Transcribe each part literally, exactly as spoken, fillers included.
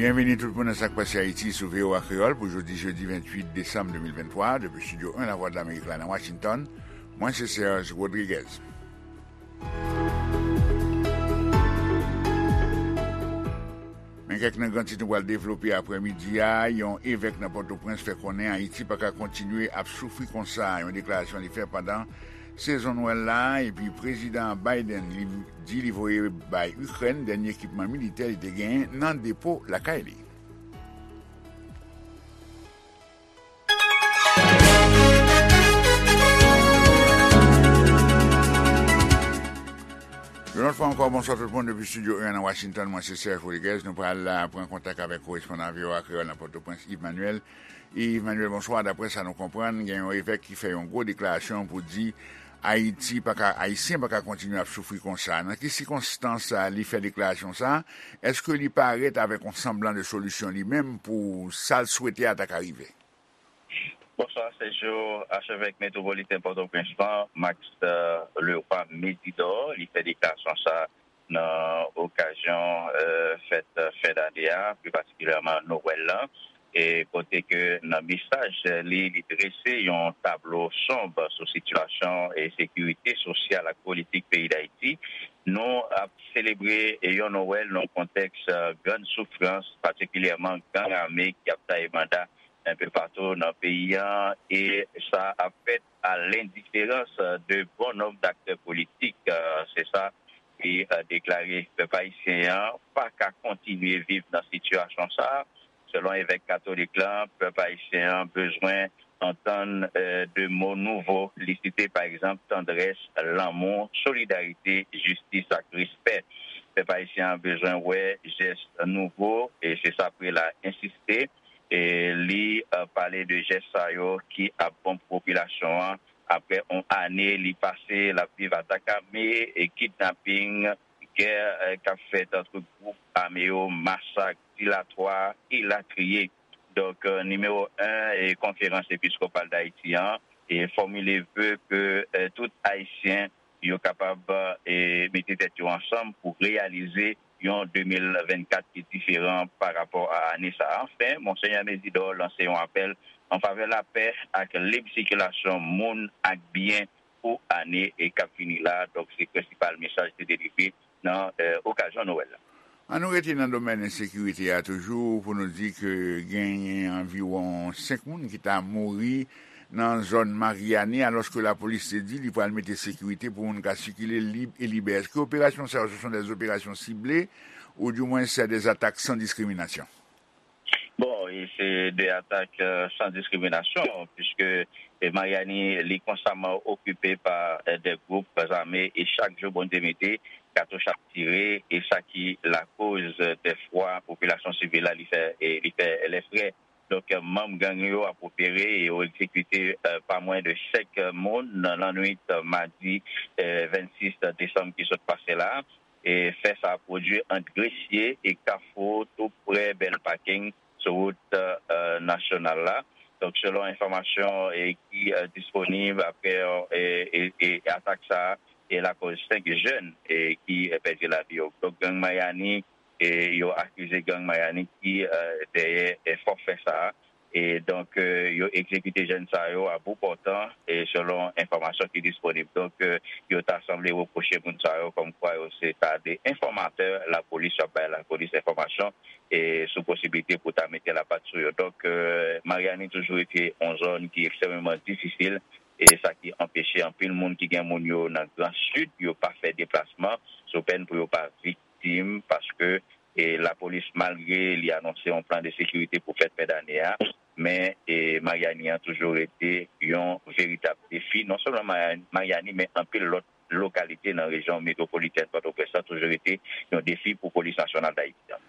Byenvini tout moun nan Sa k Pase Ayiti sou V O A Kreyòl pou jodi jedi venntuit desanm de mil venntwa, depi Estidyo en Lavwadlamerik la nan Washington. Mwen se Serge Rodriguez. Men kèk nan gran tit nou pral devlope aprèmidi a. Yon evèk nan Pòtoprens fè konnen Ayiti pa ka kontinye ap soufri konsa, yon deklarasyon li fè pandan sezon Nwèl la, epi Prezidan Biden li di li voye bay Ikrèn dènye ekipman militè li te genyen nan depo lakay li. Yon lòt fwa ankò, bonswa tout moun depi Estidyo en nan Washington. Mwen se Serge Rodriguez. Nou pral, euh, pran kontak avèk korespondan V O A Kreyòl nan Pòtoprens, Yves Manuel. Yves Manuel, bonswa. Daprè sa nou konprann, gen yon evèk ki fè yon gwo deklarasyon pou di Ayiti pa ka, Ayisyen pa ka kontinye ap soufri konsa. Nan ki sikonstans, euh, li fè deklarasyon sa? Èske li parèt avèk yon sanblan de solisyon li menm pou sa l swete a ta ka rive? Bonswa, Sergio. Achevèk metwopoliten Pòtoprens lan, Max, euh, Leroy Mésidor, li fè deklarasyon sa nan okazyon, euh, fèt, euh, fen dane a, pli patikilyèman Nwèl lan, e kote ke nan mesaj li, li drese yon tablo sonb sou sitiyasyon e sekirite sosyal ak politik peyi Dayiti. Nou ap selebre yon Nwèl nan yon kontèks, euh, grann soufrans, patikilyèman gang ame ki ap taye banda enpe patou nan peyi a, e sa ap fèt a lendiferans de bon nonb daktè politik. Euh, se sa li, euh, deklare. Pèp ayisyen an pa ka kontinye viv nan sitiyasyon sa a. Selon evèk katolik lan, pèp ayisyen an bezwen antann, euh, de mo nouvo. Li site, pa egzanp, tandrès, lanmou, solidarite, jistis ak respè. Pèp ayisyen an bezwen wè jès nouvo, e se sa prela ensiste. E li, euh, pale de jès sa yo ki ap bon pou popilasyon an. Apre yon ane li pase l ap viv atak ame, e kidnaping, gè, euh, k ap fèt ant gwoup ame yo, masak, dilatwa, elatriye. Donk, euh, nimewo en, e konferans episkopal Dayiti an, e fòmile ve ke, euh, tout Ayisyen yo kapab, e, mete tèt yo ansanm pou reyalize yon de mil vennkat ki diferan pa rapò a ane sa a. Anfen, Monsenyè Mésidor lanse yon apèl an favè lapè ak lib sikilasyon moun ak byen pou ane, e, k ap vini la. Donk, se prensipal mesaj ki te delivre nan, e, okazyon Nwèl la. Ann nou rete nan domèn ensekirite a toujou pou nou di ke genyen anviwon senk moun ki ta mouri nan zòn Maryani, alòske lapolis te di li pral mete sekirite pou moun ka sikile lib e libè. Èske operasyon sa yo, ce sont des opérations ciblées, oudimwens se des attaques sans discrimination? Bon, e se de atak, euh, san diskriminasyon, piske, e, Maryani, li konstaman okipe pa, euh, de gwoup zame, e chak jou Bondye mete, katouch ap tire, e sa ki lakoz, euh, dèfwa popilasyon sivil la, li fè, e li fè lèfrè. Donk, euh, manm gang yo ap opere e yo egzekite, euh, pa mwen de senk moun nan lannwit, euh, madi, euh, vennsis desanm ki sot pase la. E fè sa pwodui ant Gresye e Kafou, tou pre Bèl Paking, sou wout, euh, nasyonal la. Donk, selon enfòmasyon, e, ki, euh, disponib apre, euh, e, e, e atak sa a, e lakoz senk jèn, e, ki, e, pèdi lavi yo. Donk, gang Maryani, e, yo akize gang Maryani ki, euh, dèyè, e, fòfè sa a. E donk, euh, yo egzekite jèn sa yo a bout pòtan, e selon enfòmasyon ki disponib. Donk, euh, yo ta sanble repwoche moun sa yo kòmkwa yo se ta de enfòmatè lapolis, y ap bay lapolis enfòmasyon, e sou posiblite pou ta mete lapat sou yo. Donk, euh, Maryani toujou rete yon zòn ki ekstrèmeman difisil, e sa ki anpeche anpil moun ki gen moun yo nan Gran Sid, yo pa fè deplasman, sou pèn pou yo pa viktim, paske, e, lapolis, malgre li anonse yon plan de sekirite pou fèt fen dane a, men, e, Maryani an toujou rete yon veritab defi, non sèlman Maryani, Maryani, men anpil lòt lokalite nan rejyon metwopolitèn Pòtoprens lan toujou rete yon defi pou Polis Nasyonal Dayiti an.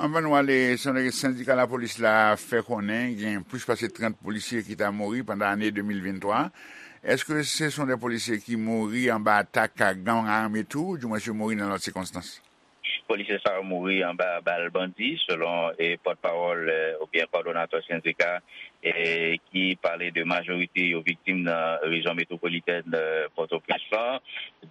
Anvan nou ale, sendika lapolis la fè konnen gen plis pase trant polisye ki ta mouri pandan ane de mil venntwa. Èske se son de polisye ki mouri anba atak gang ame tou, oudimwens yo mouri nan lòt sikonstans? Polisye sa yo mouri anba bal bandi, selon, e, pòtpawòl, e, oubyen kòdonatè sendika, e, ki pale de majorite yo viktim nan rejyon metwopolitèn, e, Pòtoprens lan.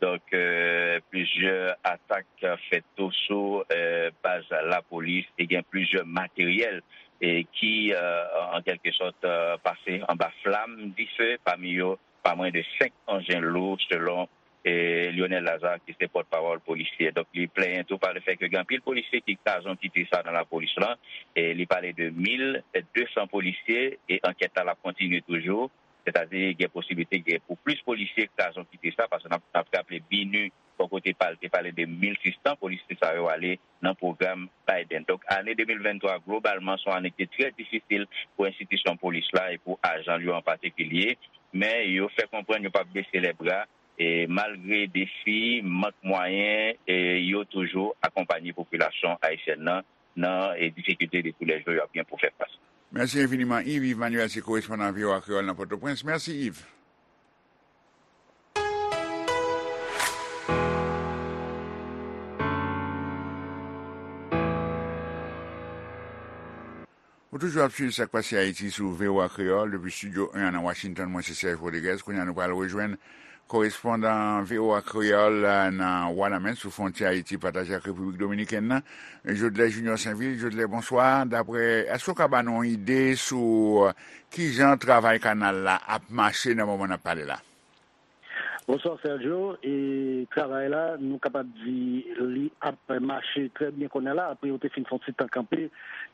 Donk, euh, plizyè atak fèt tou sou, euh, baz lapolis e gen plizyè materyèl e ki, euh, an kèlke sòt, euh, pase anba flam dife, pami yo pa mwen de senk anjen lou, selon, e, Lionel Lazarre, ki se pòtpawòl polisye. Donk, li plenyen tou pa le fè ke gen anpil polisye ki kraze yon kite sa nan lapolis lan. E li pale de mil de san polisye e ankèt la l ap kontinye toujou. Sètadi, gen posiblite gen pou plis polisye kraze yon kite sa, paske n ap, n ap raple BINUH, bò kote pa l, te pale de mil sis san polisye sa yo ale nan pwogram Biden. Donk, ane de mil venntwa, globalman, se yon ane ki te trè difisil pou enstitisyon polis la e pou ajan l yo an patikilye, men yo fè konprann yo p ap bese lè bra, e malgre defi, mank mwayen, e yo toujou akonpanye popilasyon ayisyèn nan, nan, e difikilte de toulèjou y ap gen pou fè fas. Mèsi enfiniman, Yves. Yves Manuel se korespondan V O A Kreyòl nan Pòtoprens. Mèsi, Yves. Ou toujou ap swiv Sa k Pase Ayiti sou V O A Kreyòl, depi Estidyo en an nan Washington. Mwen se Serge Rodriguez. Kounye a, nou pral rejwenn korespondan V O A Kreyòl, eh, nan Wanament, sou fwontyè Ayiti pataje ak Repiblik Dominikèn nan, Jodelè Junior Sainvil. Jodelè, bonswa. Daprè, èske w ka ba nou yon ide sou, eh, kijan travay kanal la ap mache nan moman n ap pale la? Bonswa, Sergio. E travay la, nou kapab di li ap mache trè byen kounye a la. Apre yo te fin fè yon ti tan kanpe,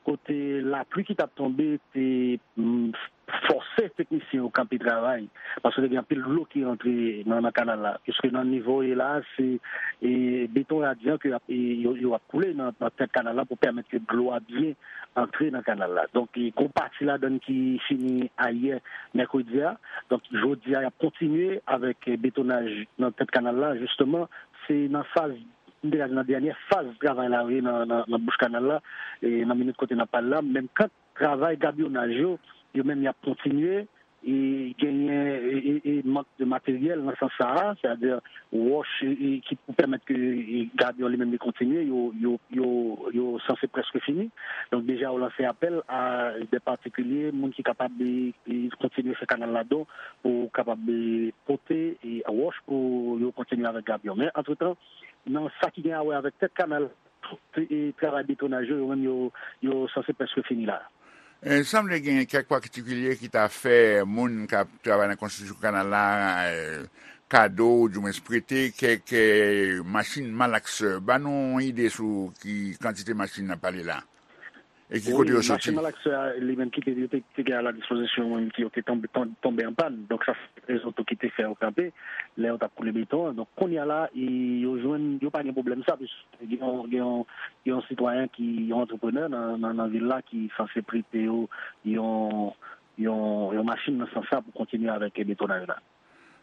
kote lapli ki t ap tonbe te, mm, fòse teknisyen yo kanpe travay, paske te gen anpil dlo ki rantre nan, nan kanal la. Piske nan nivo ye la, se, e, beton radyan ke ap, e, yo, yo ap koule nan, nan tèt kanal la pou pèmèt ke dlo a byen antre nan kanal la. Donk, e, gon pati ladann ki fini ayè, mèkredi a. Donk, jodi a, y ap kontinye avèk, e, betonaj nan tèt kanal la. Jisteman, se nan faz, m te ka di nan dènyè faz travay la yo ye nan, nan, nan bouch kanal la, e, nan minit kote n ap pale la. Menm kan travay gabyonaj yo, yo menm y ap kontinye, e genyen, e, e, e mank de materyèl nan sans sa a, sètadi wòch, e, e, ki pou pèmèt ke, e, gabyon li menm li kontinye, yo, yo, yo, yo sanse prèske fini. Donk, deja yo lanse apèl a de patikilye, moun ki kapab, e, e, kontinye fè kanal la don pou kapab, e, pote, e, wòch pou yo kontinye avèk gabyon. Men, antretan, nan sa ki gen a wè avèk tèt kanal, tout, e, travay betonaj yo, yo menm yo, yo sanse prèske fini la. E, sanble gen kèk patikilye ki ta fè moun k ap travay nan konstriksyon kanal la, e, kado, oudimwens prete kèk, e, machin malaksè. Ban nou yon ide sou ki kantite machin n ap pale la. E ki kote yo soti? Wi, machin malaksè a, li menm ki te, yo te, te gen a la dispozisyon, menm ki yo te tonbe, ton-, tonbe an pàn. Donk, sa se rezon tou ki te fè yo kanpe lè yo t ap koule beton an. Donk, kounye a la, e, yo jwenn, yo pa gen pwoblèm sa, piske gen yon, gen yon, gen yon sitwayen ki, yon antreprenè nan, nan, nan vil la ki sanse prete yo yon, yon, yon machin nan sans sa pou kontinye avèk betonaj la.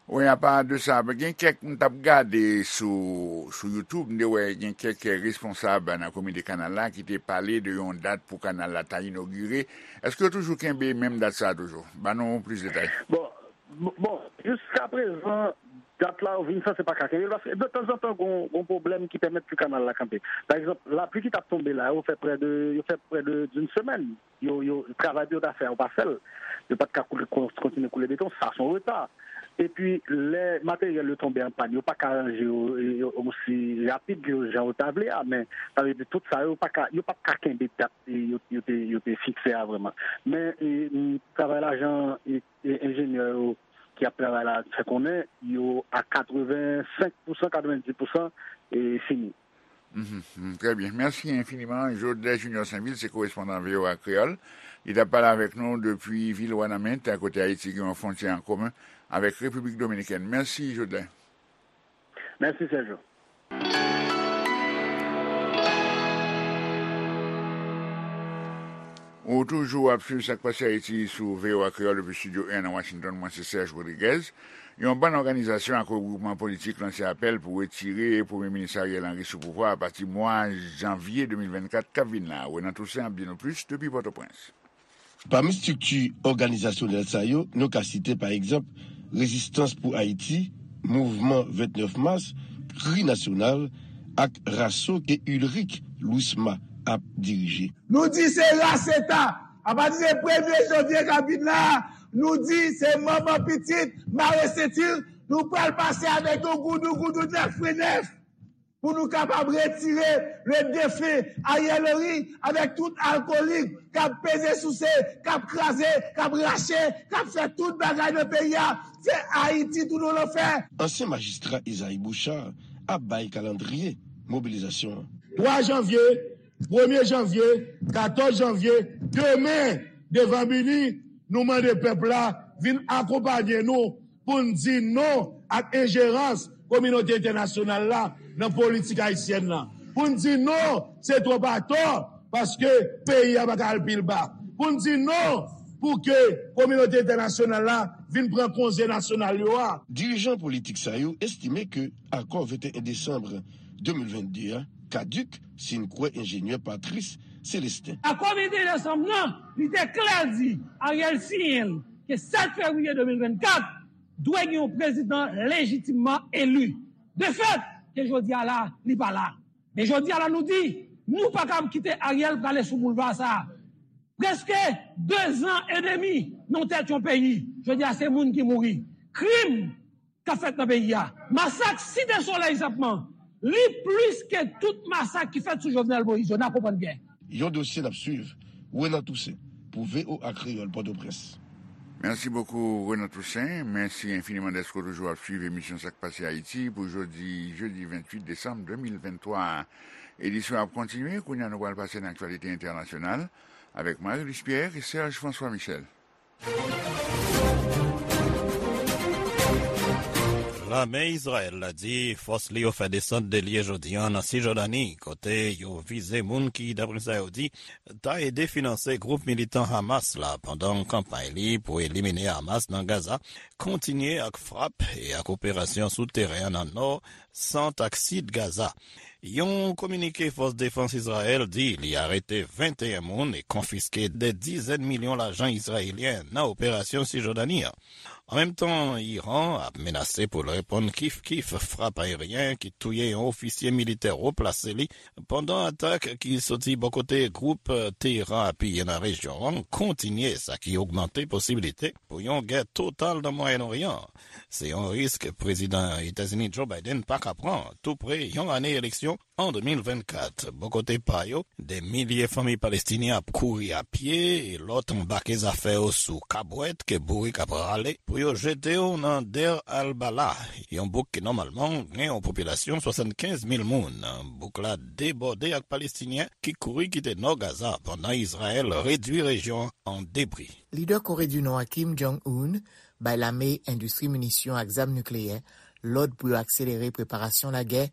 Wi, apa de sa, gen kèk, m t ap gade sou, sou YouTube, m te wè gen kèk responsab nan komite kanal la ki te pale de yon dat pou kanal la ta inogire. Èske yo toujou kenbe menm dat sa a toujou? Ban nou plis detay. Bon, bon, bon, jiska prezan, dat la yo vin sanse pa ka kenbe l, paske de tanzantan gon, gon pwoblèm ki pèmèt ke kanal la kanpe. Pa egzanp, lapli ki t ap tonbe la, yo fè prè de, yo fè prè de d'une semaine. Yo, yo, travay yo ta fè a, yo pa fè l. Yo pa t ka koule, kon-, kontinye koule beton, sa se yon reta. Epi, lè materyèl yo tonbe an pàn, yo pa ka ranje yo, yo osi rapid ke jan yo ta vle a, men sa vle di tout sa yo pa ka, yo pa t ka kenbe dat, e, yo, yo te, yo te fikse a vrèman. Men, e, m, travay la, jan, e, e, enjenyè yo ki ap travay la fè konnen, yo a katrevensenk pousan, katrevendis pousan, e, fini. Mhm, mhm, trè byen. Mèsi enfiniman. Jodelè Junior Sainvil se korespondan V O A Kreyòl. Li t ap pale avèk nou depi vil Wanament, kote Ayiti gen yon fwontyè an komen avèk Repiblik Dominikèn. Mèsi, Jodelè. Mèsi, Sergio. Ou toujou ap swiv Sa k Pase Ayiti sou V O A Kreyòl depi Estidyo en nan Washington. Mwen se Serge Rodriguez. Yon bann òganizasyon ak regwoupman politik lanse apèl pou retire Premye Minis Ariel Henry sou pouvwa a pati mwa janvye de mil vennkat k ap vin la. Renan Toussaint ap di nou plis depi Pòtoprens. Pami estrikti òganizasyonèl sa yo, nou ka site, pa egzanp, Rezistans pou Ayiti, Mouvman vennèf Mas, Kri Nasyonal ak Raso ke Ulrich Louisma ap dirije. Nou di se raseta. Apati de premye janvye k ap vin la, nou di se manman pitit, mare senti l, Nou pral pase avèk yon goudougoudou nèf pwen nèf pou nou kapab retire le defen Ariel Henry avèk tout alkolik k ap peze souse, k ap kraze, k ap rache, k ap fè tout bagay nan peyi a. Se Ayiti tounen w lanfè. Ansyen majistra Isaïe Bouchard ap bay kalandriye mobilizasyon an. Twa janvye, premye janvye, katòz janvye, demen, devan Bini, nou mande pèp la vin akonpaye nou pou n di non ak enjerans kominote entènasyonal la nan politik ayisyèn nan. Pou n di non, se twòp atò, paske peyi a pa ka al pi ba. Pou n di non pou ke kominote entènasyonal la vin pran konze nasyonal yo a. Dirijan politik sa yo estime ke akò venteyen desanm de mil vennde a kadik, si n kwè enjenyè Patrice Célestin. Akò venteyen desanm nan, li te klè di Ariel siyen l ke sèt fevriye de mil vennkat, dwe gen yon prezidan lejitimman eli. De fèt, ke jodi a la, li pa la. Men jodi a la, nou di, nou pa kab kite Ariel prale sou boulva sa a. Prèske de zan edemi nan tèt yon peyi. Jodi a, se moun ki mouri. Krim k ap fèt nan peyi a. Masak Site Solèy senpman, li plis ke tout masak ki fèt sou Jovenel Moïse yo. N a konprann byen. Yon dosye n ap swiv. Renan Toussaint, pou V O A Kreyòl, Pòtoprens. Merci beaucoup, Renan Toussaint. Mèsi enfiniman dèske w toujou ap swiv emisyon Sa k Pase Ayiti pou jodi, jedi venntuit desanm de mil venntwa a. Edisyon ap kontinye. Kounye a, nou pral pase nan aktyalite entènasyonal avèk Marie-Luce Pierre e Serge François Michel. Lame Izrayèl la di fòs li yo fè desann de lye jodi a nan Sijòdani, kote yo vize moun ki, daprè sa yo di, ta ede finanse gwoup militan Hamas la pandan kanpay li pou elimine Hamas nan Gaza, kontinye ak frap e ak operasyon sou teren an nan nò, sant ak sid Gaza. Yon kominike fòs defans Izrayèl di li arete venteyen moun e konfiske de dizèn milyon lajan izrayelyen nan operasyon Sijòdani an. An menm tan, Iran ap menase pou l reponn kif kif frap ayeryen ki touye yon ofisye militè wo plase li pandan atak ki soti bò kote gwoup Teheran apiye nan rejyon an kontinye, sa ki ogmante posibilite pou yon gè total nan Mwayen Oryan. Se yon risk Prezidan Etazini Joe Biden pa ka pran, tou pre yon ane eleksyon an de mil vennkat. Bò kote pa yo, de milye fanmi palestinyen ap kouri a pye e lòt anbake zafè yo sou kabwèt ke bourik ap rale pou yo jete yo nan Deir al-Balah, yon bouk ki nòmalman gen yon popilasyon swasannkenz mil moun. Bouk la debòde ak Palestinyen ki kouri kite nò Gaza pandan Izrayèl redui rejyon an an debri. Lidè Kore di Nò a Kim Jong-un bay lame endistri minisyon ak zam nikleyè lòd pou yo akselere preparasyon lagè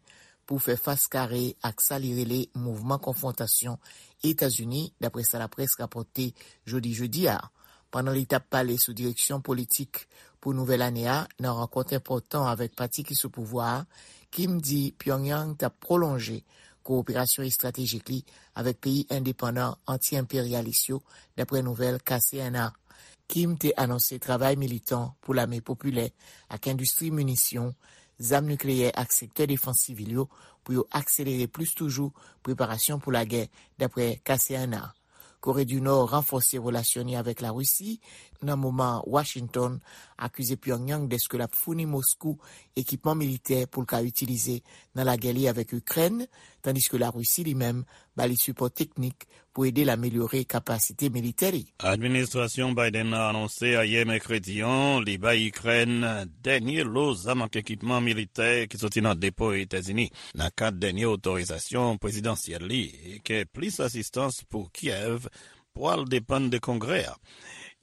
pou fè fas kare ak sa li rele mouvman konfwontasyon Etazini, daprè sa laprès rapòte jodi jedi a. Pandan li t ap pale sou direksyon politik pou nouvèl ane a nan rankont enpòtan avèk pati ki sou pouvwa a, Kim di Pyongyang t ap pwolonje kowoperasyon estratejik li avèk peyi endepandan anti-enperyalis yo, daprè nouvèl K C N A. Kim te anonse travay militan pou lame popilè ak endistri minisyon, zam nikleyè ak sektè defans sivil yo pou yo akselere plis toujou preparasyon pou lagè, daprè K C N A. Kore di Nò ranfòse relasyon li avèk Larisi nan moman Washington akize Pyongyang dèske l ap founi Moskou ekipman militè pou l ka itilize nan lagè li avèk Ikrèn, tandiske Larisi li menm ba li sipò teknik pou ede l amelyore kapasite militè li. Administrasyon Biden nan anonse ayè mèkredi an li bay Ikrèn dènye lo zam ak ekipman militè ki soti nan depo Etazini nan kad dènye otorizasyon prezidansyèl li, e ke plis asistans pou Kyèv pwal depann de Kongrè a.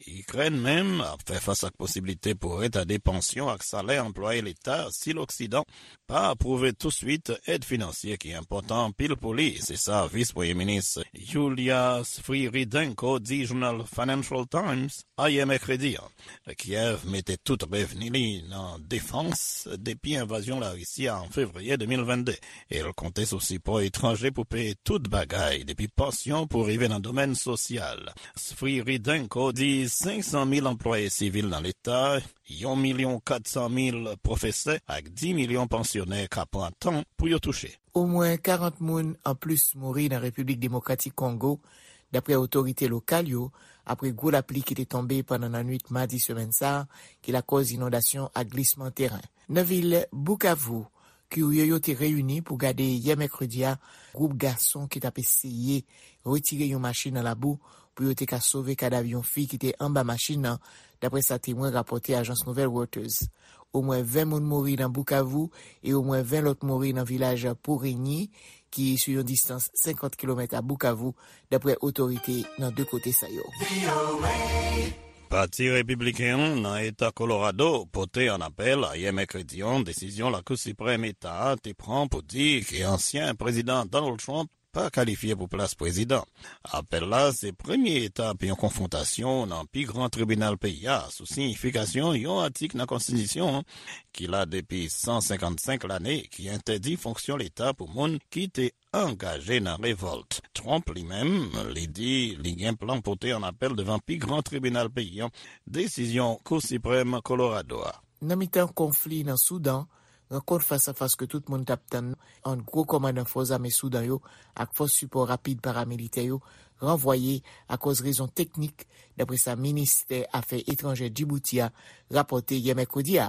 Ikrèn menm ap fè fas ak posiblite pou retade pansyon ak salè anplwaye leta si Loksidan pa apwouve touswit èd finansye ki enpòtan anpil pou li, se sa vis premye minis Yulia Sviridenko di jounal Financial Times ayè mèkredi an. Kyèv mete tout revni li nan defans depi envazyon Larisi a an fevriye de mil vennde, e l konte sou sipò etranje pou peye tout bagay, depi pansyon pou rive nan domèn sosyal. Sviridenko di senk san mil anplwaye sivil nan leta, yon milyon kat san mil pwofesè ak dis milyon pansyonè ka pran tan pou yo touche. Omwen karant moun anplis mouri nan Repiblik Demokratik Kongo, daprè otorite lokal yo, apre gwo lapli ki te tonbe pandan nannwit madi semèn sa a, ki lakòz inondasyon ak glisman teren. Nan vil Bukavu, kirye yo te reyini pou gade yè mèkredi a gwoup gason ki t ap eseye retire yon machin nan labou pou yo te ka sove kadav yon fi ki te anba machin nan, dapre sa temwen rapòte ajans nouvèl Reuters. Omwen ven moun mouri nan Bukavu e omwen ven lòt mouri nan vilaj Purenyi, ki sou yon distans senkant kilomèt a Bukavu, dapre otorite nan de kote sa yo. Pati Repibliken an nan Eta Kolorado pote an apèl ayè mèkredi an desizyon Lakou Siprèm Eta a te pran pou di ke ansyen Prezidan Donald Trump pa kalifye pou plas prezidan. Apèl la se premye etap yon konfwontasyon nan pi gran tribinal peyi a sou siyifikasyon yon atik nan konstitisyon an ki la depi san senkannsenk lane, ki entèdi fonksyon leta pou moun ki te angaje nan revòlt. Trump li menm, li di li gen plan pote an apèl devan pi gran tribinal peyi an desizyon Kou Siprèm Kolorado a. Nan mitan konfli nan Soudan, rankont fas a fas ke tout moun t ap tann ant gwo kòmandan fòs ame Soudan yo ak fòs sipò rapid paramilitè yo ranvwaye akòz rezon teknik, dapre sa ministè afè etranjè Djibouti a rapòte yè mèkredi a.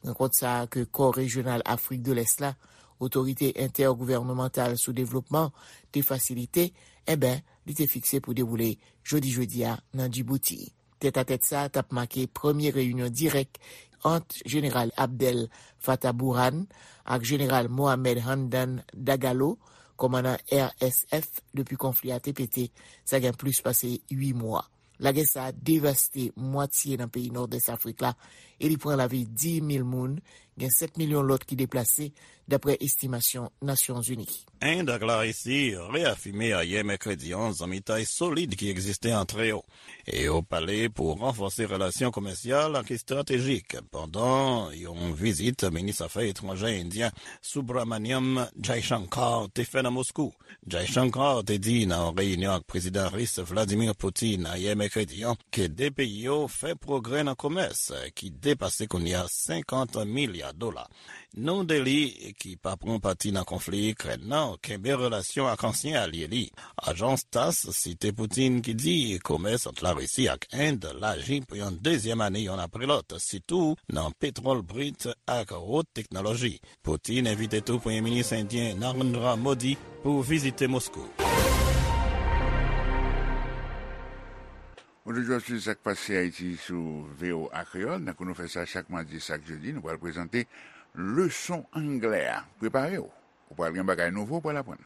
Rankont sa a ke kò rejyonal Afrik de Lès la, Otorite Entègouvènmantal sou Devlopman, te fasilite, enben, li te fikse pou dewoule jodi jedi a nan Djibouti. Tètatèt sa a t ap make premye reyinyon dirèk ant Jeneral Abdel Fattah Burhan ak Jeneral Mohamed Hamdan Dagalo, kòmandan R S F, depi konfli a te pete, sa gen plis pase uit mwa. Lagè sa a devaste mwatye nan peyi Nòdès Afrik la e li pran lavi dis mil moun, gen sèt milyon lòt ki deplase, dapre estimasyon Nasyonzini. End ak Larisi reyafime ayè mèkredi an zanmitay solid ki egziste ant yo, e yo pale pou ranfòse relasyon komèsyal ak estratejik pandan yon vizit minis afè etranjè endyen Subramaniam Jaishankar te fè nan Moskou. Jaishankar te di nan yon reyinyon ak Prezidan Ris Vladimir Putin ayè mèkredi an ke de peyi yo fè pwogrè nan komès ki depase kounye a senkant milya dola. New Delhi, ki pa pran pati nan konfli Ikrèn nan, kenbe relasyon ak ansyen alye li. Ajans TASS site Putin ki di komès ant Larisi ak End laji pou yon dezyèm ane yonn apre lòt, sitou nan petwòl brit ak wot teknoloji. Putin envite tou Premye Minis endyen Narendra Modi pou vizite Moskou. Ou toujou ap swiv Sa k Pase Ayiti sou V O A Kreyòl. Tankou nou fè sa chak madi, chak jedi, nou pral prezante leson anglè a. Prepare w. Ou pral gen bagay nouvo ou pral aprann.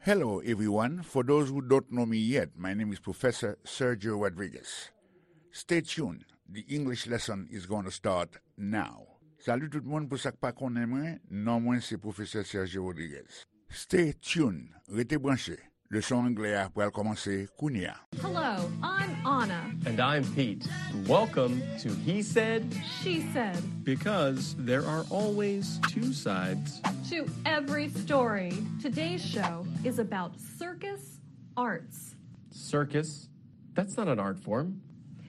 Hello, everyone. For those who don't know me yet, my name is Professor Sergio Rodriguez. Stay tuned. The English lesson is going to start now. Salut tout moun, pou sa k pa konnen mwen, non mwen se Professor Sergio Rodriguez. Stay tuned. Rete branche. Leson anglè a pral kòmanse kounye a. Hello, I'm Anna. And I'm Pete. Welcome to He Said, She Said. Because there are always two sides to every story. Today's show is about circus arts. Circus? That's not an art form.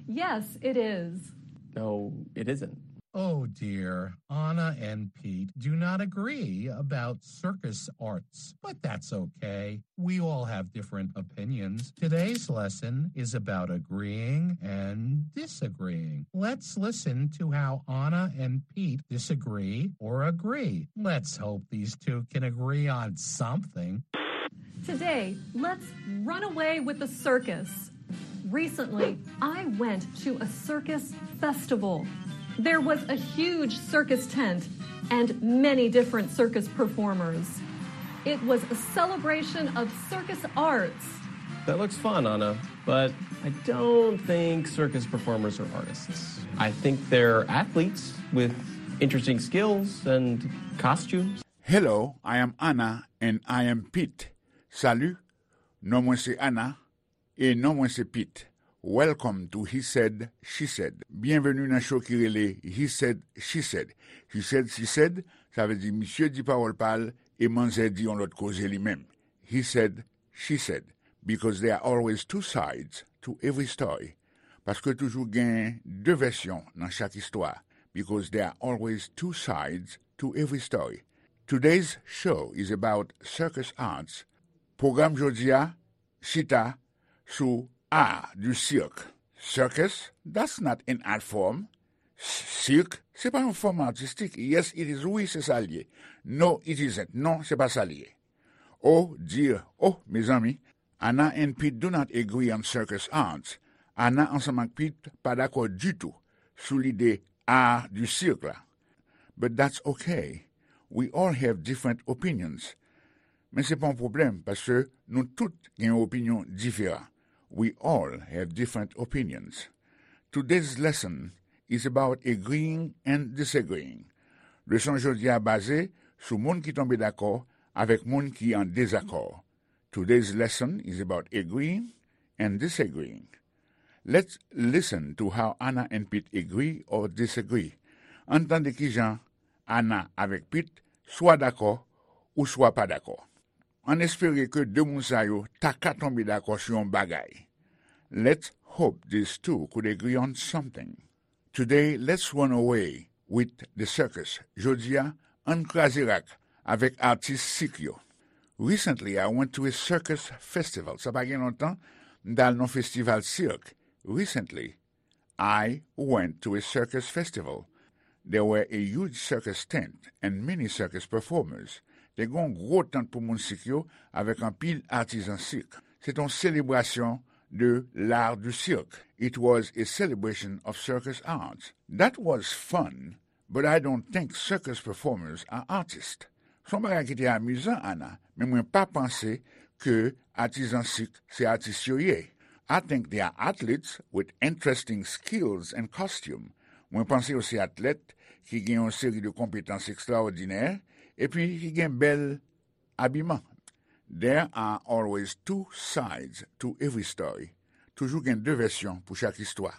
Yes, it is. No, it isn't. Oh dear, Anna and Pete do not agree about circus arts, but that's okay. We all have different opinions. Today's lesson is about agreeing and disagreeing. Let's listen to how Anna and Pete disagree or agree. Let's hope these two can agree on something. Today, let's run away with the circus. Recently, I went to a circus festival. There was a huge circus tent and many different circus performers. It was a celebration of circus arts. That looks fun, Anna, but I don't think circus performers are artists. I think they're athletes with interesting skills and costumes. Hello, I am Anna and I am Pete. Salut, non mwen se Anna e non mwen se Pete. Welcome to He Said, She Said. Byenveni nan show ki rele He Said, She Said. He said, she said, sa vle di misye di pawòl pa l e manzè di yon lòt koze li menm. He said, she said. Because there are always two sides to every story. Paske toujou gen de vèsyon nan chak istwa. Because there are always two sides to every story. Today's show is about circus arts, Pwogram jodi a chita sou art du cirque. Circus, that's not an art form. Sirk, se pa yon fòm atistik. Yes, it is, wi, se sa l ye. No, it isn't. Non, se pa sa l ye. Oh dear, oh, mezanmi, Anna and Pete do not agree on circus arts. Anna ansanm ak Pete pa dakò ditou sou lide art du cirque la. But that's okay. We all have different opinions. Men se pa yon pwoblèm, paske nou tout gen yon opinyon diferan. We all have different opinions. Today's lesson is about agreeing and disagreeing. Leson jodi a baze sou moun ki tonbe dakò avèk moun ki an dezakò. Today's lesson is about agreeing and disagreeing. Let's listen to how Anna and Pete agree or disagree. Ann tande kijan Anna avèk Pete swa dakò ou swa pa dakò. Ann espere ke de moun sa yo ta ka tonbe dakò sou yon bagay. Let's hope these two could agree on something. Today, let's run away with the circus. Jodi a, ann kraze rak avèk atis sik yo. Recently, I went to a circus festival. Sa pa gen lontan, m t al nan festival sirk. Recently, I went to a circus festival. There were a huge circus tent and many circus performers. Te gen yon gwo tant pou moun sik yo avèk anpil atizan sik. Se te yon selebrasyon de l'art du cirque. It was a celebration of circus arts. That was fun, but I don't think circus performers are artists. Se yon bagay ki te amizan, Anna, men mwen pa panse ke atizan sik se atis yo ye. I think they are athletes with interesting skills and costume. Mwen panse yo se atlèt ki gen yon seri de konpetans ekstraòdinè epi ki gen bèl abiman. There are always two sides to every story. Toujou gen de vèsyon pou chak istwa.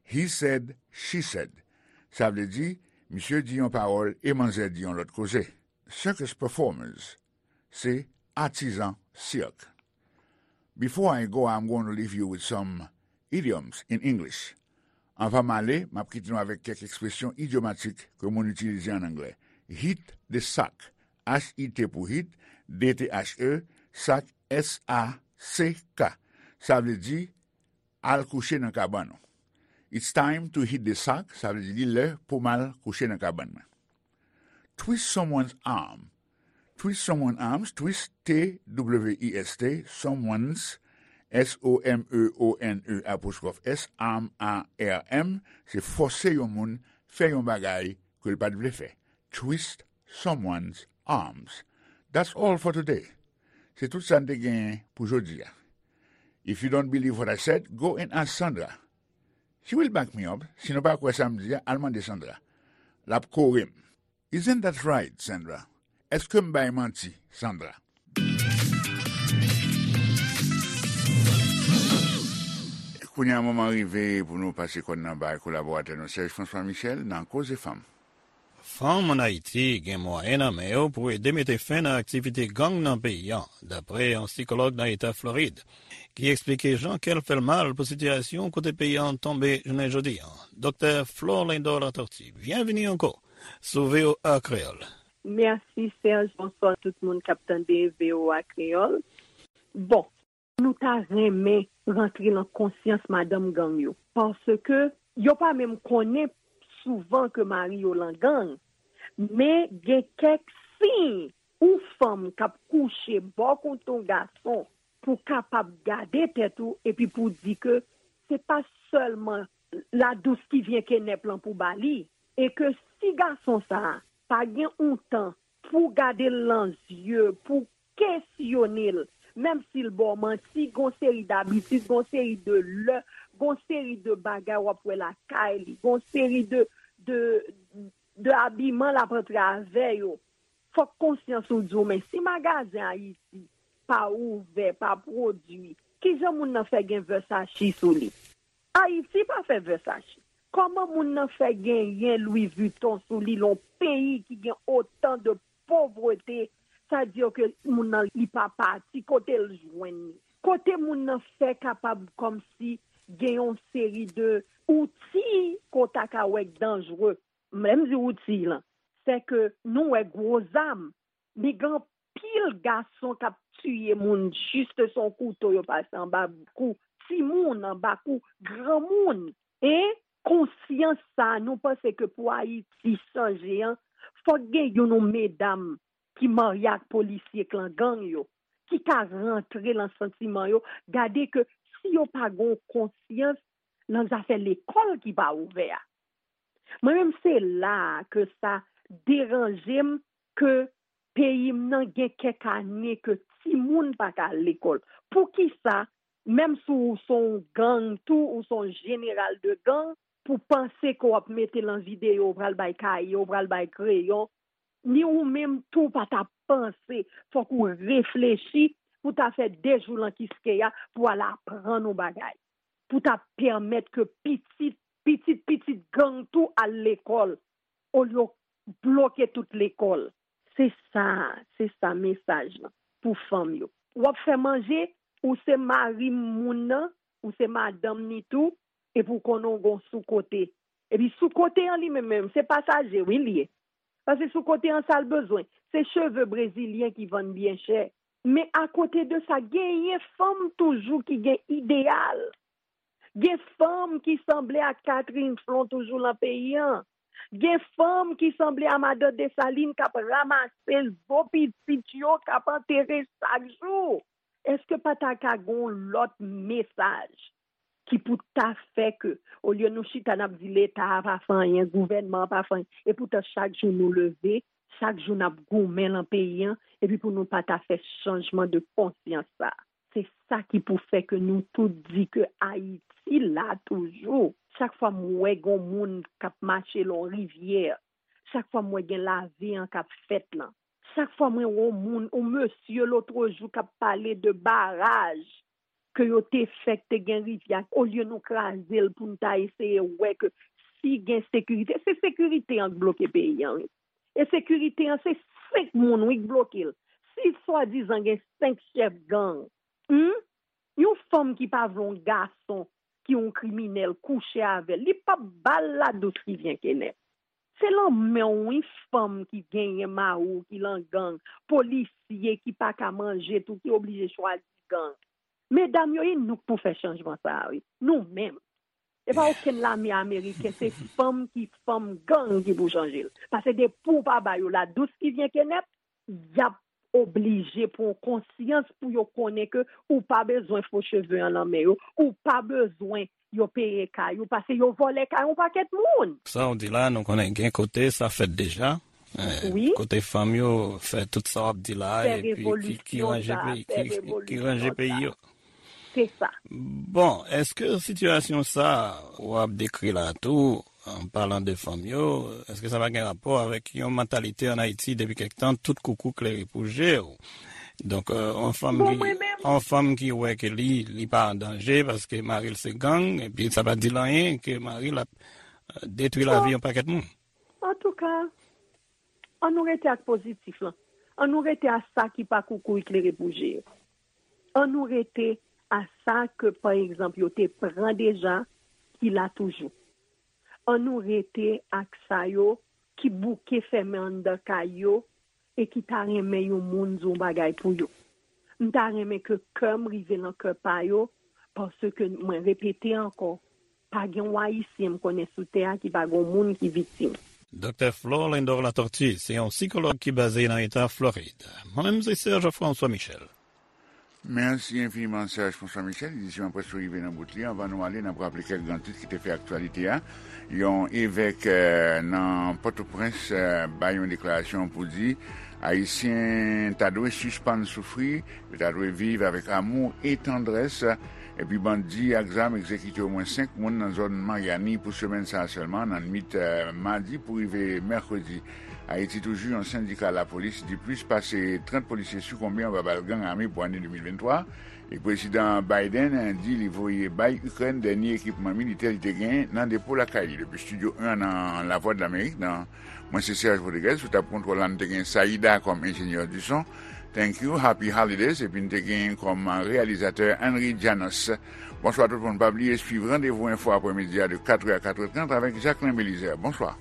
He said, she said. Sa vle di, misye di yon pawòl e manzè di yon lòt koze. Circus performers, se atizan sirk. Before I go, I'm going to leave you with some idioms in English. Anvan m ale, m ap kite nou avèk kèk ekspresyon idyomatik ke moun itilize ann anglè. Hit the sack. H I T pou hit, D T H E, sack, S A C K. Sa vle di, al kouche nan kabann ou. It's time to hit the sack, sa vle di li lè pou m al kouche nan kabann mwen. Twist someone's arm. Twist someone's arms, twist, T W I S T, someone's, S O M E O N E apostrophe S, arm, A R M, se fòse yon moun fè yon bagay ke l pa t vle fè. Twist someone's arms. That's all for today. Se tout sa n te genyen pou jodi a. If you don't believe what I said, go and ask Sandra. She will back me up. Si nou pa kwè sa m di a, al mande Sandra. L ap kore m. Isn't that right, Sandra? Èske m bay manti, Sandra? Kounye a, moman rive pou nou pase kòn nan bay kolaboratè nou Serge François Michel nan Koze Fanm. Fanm ann Ayiti gen mwayen nan men yo pou ede mete fen nan aktivite gang nan peyi a, dapre yon sikològ nan eta Florid, ki eksplike jan kè l fè l mal pou sitiyasyon kote peyi a tonbe jounen jodi a. Doktè Florlindor Latortue, byenvini ankò sou V O A Kreyòl. Mèsi, Serge. Bonswa tout moun k ap tande V O A Kreyòl. Bon, nou ta renmen rantre nan konsyans madanm gang yo, paske yo pa menm konnen souvan ke mari yo lan gang, men gen kèk siy ou fanm k ap kouche bò kote yon gason pou kapab gade tèt ou epi pou di ke se pa sèlman la douce qui vient kenèp lan pou ba li, e ke si gason sa a pa gen yon tan pou gade l nan zye, pou kesyone l, menm si l ba w manti, gon seri dabitid, gon seri de lè, gon seri de bagay w ap wè lakay li, gon seri de, de, de abiman l ap antre avè yo. Fòk konsyans ou di w, men si magazen Ayiti pa ouvè, pa pwodui, kijan moun nan fè gen Versace sou li? Ayiti pa fè Versace. Kòman moun nan fè genyen Louis Vuitton sou li, lè yon peyi ki gen otan de povrete, sa di ke moun nan li pa pati, kote l jwenn li? Kote moun nan fè kapab kòmsi gen yon seri de outi ke w ta ka wè k danjre? Lè m di outi lan, se ke nou wè gwo zam, men gen anpil gason k ap tiye moun jis se yon kouto yo pase anba kou timoun, anba kou granmoun. E konsyans sa, nou panse ke pou Ayiti chanje an, fòk gen youn ou medam ki marye ak polisye k lan gang yo, ki ka rantre lan santiman yo, gade ke si yo pa gen yon konsyans lan zafè lekòl ki pa ouvè a. Mwen menm se la a ke sa deranje m ke peyi m nan gen kèk ane ke timoun pa ka al lekòl. Poukisa, menm si w se yon gang tou, ou se yon jeneral de gang, pou panse ke w ap mete lan videyo, ou pral bay kaye, ou pral bay kreyon, ni ou menm tou pa ta panse, fòk ou reflechi pou ta fè de jou lan kiskeya pou al aprann yon bagay, pou ta pèmèt ke pitit, pitit, pitit gang tou al lekòl, olye w bloke tout lekòl. Se sa, se sa mesaj lan pou fanm yo. W ap fè manje, ou se mari moun nan, ou se madanm ni tou, epi w konnen w gon sou kote. Epi sou kote an li menm menm, se pasaje wi li ye. Paske sou kote an sa l bezwen, se cheve brezilyen ki vann byen chè. Men akote de sa, genyen fanm toujou ki gen ideyal. Gen fanm ki sanble ak Catherine Flon toujou lan peyi an. Gen fanm ki sanble a Madan Desalin k ap ranmase zo pitit yo k ap antere chak jou. Èske pa ta ka gen yon lòt mesaj ki pou ta fè ke, olye nou chita n ap di Leta a pa fè anyen, gouvènman an pa fè anyen, epoutan chak jou nou leve, chak jou n ap goumen lan peyi an, epi pou nou pa ta fè chanjman de konsyans sa a. Se sa ki pou fè ke nou tout di ke Ayiti la toujou. Chak fwa m wè gen yon moun k ap mache lan yon rivyè, chak fwa m wè gen lave an k ap fèt lan, chak fwa mwen wè yon moun, yon mesye lòt jou k ap pale de baraj ke yo te fè k te gen rivyè, olye nou kraze l pou n ta eseye wè ke si gen sekirite, se sekirite an k bloke peyi an wi. E sekirite an se senk moun wi k bloke l. Si swadizan gen senk chèf gang, hmm? Yon fanm ki pa vle yon gason ki yon kriminèl kouche avè l, li p ap ba l la douce qui vient Kenneth. Se lanmè w wi fanm ki genyen mari w ki lan gang, polisye ki pa ka manje tou ki oblije chwazi gang. Medam yo, e nou k pou fè chanjman sa a wi, nou menm. E pa okenn lame ameriken, se fanm ki fanm gang ki pou chanje l. Paske depi w pa ba yo la douce qui vient Kenneth, y ap oblije pran konsyans pou yo konnen ke ou pa bezwen fo cheve an nan men yo, ou pa bezwen yo peye kay ou, paske yo vòlè kay yon pakèt moun. Sa w di la, nou konnen gen kote sa fèt deja. Eh, wi. Kote fanm yo fè tout sa w ap di la, fè epi ki, ki ranje peyi, ki, ki ranje peyi yo. Se sa. Bon, èske sitiyasyon sa w ap dekri la tou, an palan de fanm yo, èske sa pa gen rapò avèk yon mantalite ann Ayiti depi kèk tan, tout koukou klere pou je w? Donk, euh, yon fanm ki, yon fanm ki wè ke li, li pa an danje paske mari l se gang, epi sa pa di l anyen ke mari l ap, euh, detwi lavi yon pakèt moun. Antouka, ann nou rete ak pozitif lan. Ann nou rete a sa ki pa koukou klere pou je yo. Ann nou rete a sa ke, pa egzanp, yo te pran deja, ki la toujou. Ann nou rete ak sa yo ki bouke fèmen anndan kay yo e ki ta renmen yon moun di yon bagay pou yo. M ta renmen ke kè m rive nan kè pa yo, paske mwen repete ankò, pa gen yon Ayisyen m konnen sou tè a ki pa gen yon moun ki viktim. Doktè Florlindor Latortue se yon sikològ ki baze nan eta Florid. Mwen menm se Serge François Michel. Mèsi enfiniman, Serge François Michel. Edisyon an prèske rive nan bout li. Anvan nou ale, n ap raple kèk gran tit ki te fè aktyalite a. Yon evèk, eh, nan Pòtoprens, eh, bay yon deklarasyon pou di Ayisyen ta dwe sispann soufri, yo ta dwe viv avèk amou e tandrès. Epi bandi ak zam egzekite omwen senk moun nan zòn Maryani pou semèn sa a sèlman, nan nwit, eh, madi pou rive mèkredi. Ayiti toujou, yon sendika lapolis di plis pase trant polisye sikonbe anba bal gang ame pou ane de mil venntwa. E Prezidan Biden di li voye bay Ikrèn dènye ekipman militè li te gen nan depo lakay li. Depi Estidyo en nan Lavwadlamerik, nan, mwen se Serge Rodriguez, sou tab kontwòl la, n te gen Saida kòm enjenyè di son. Thank you, happy holidays, epi n te gen kòm reyalizatè Henry Janos. Bonswa tout moun, pa bliye swiv Randevou Enfo aprèmidi a de katrè a katrè trant avèk Jacquelin Belizaire. Bonswa.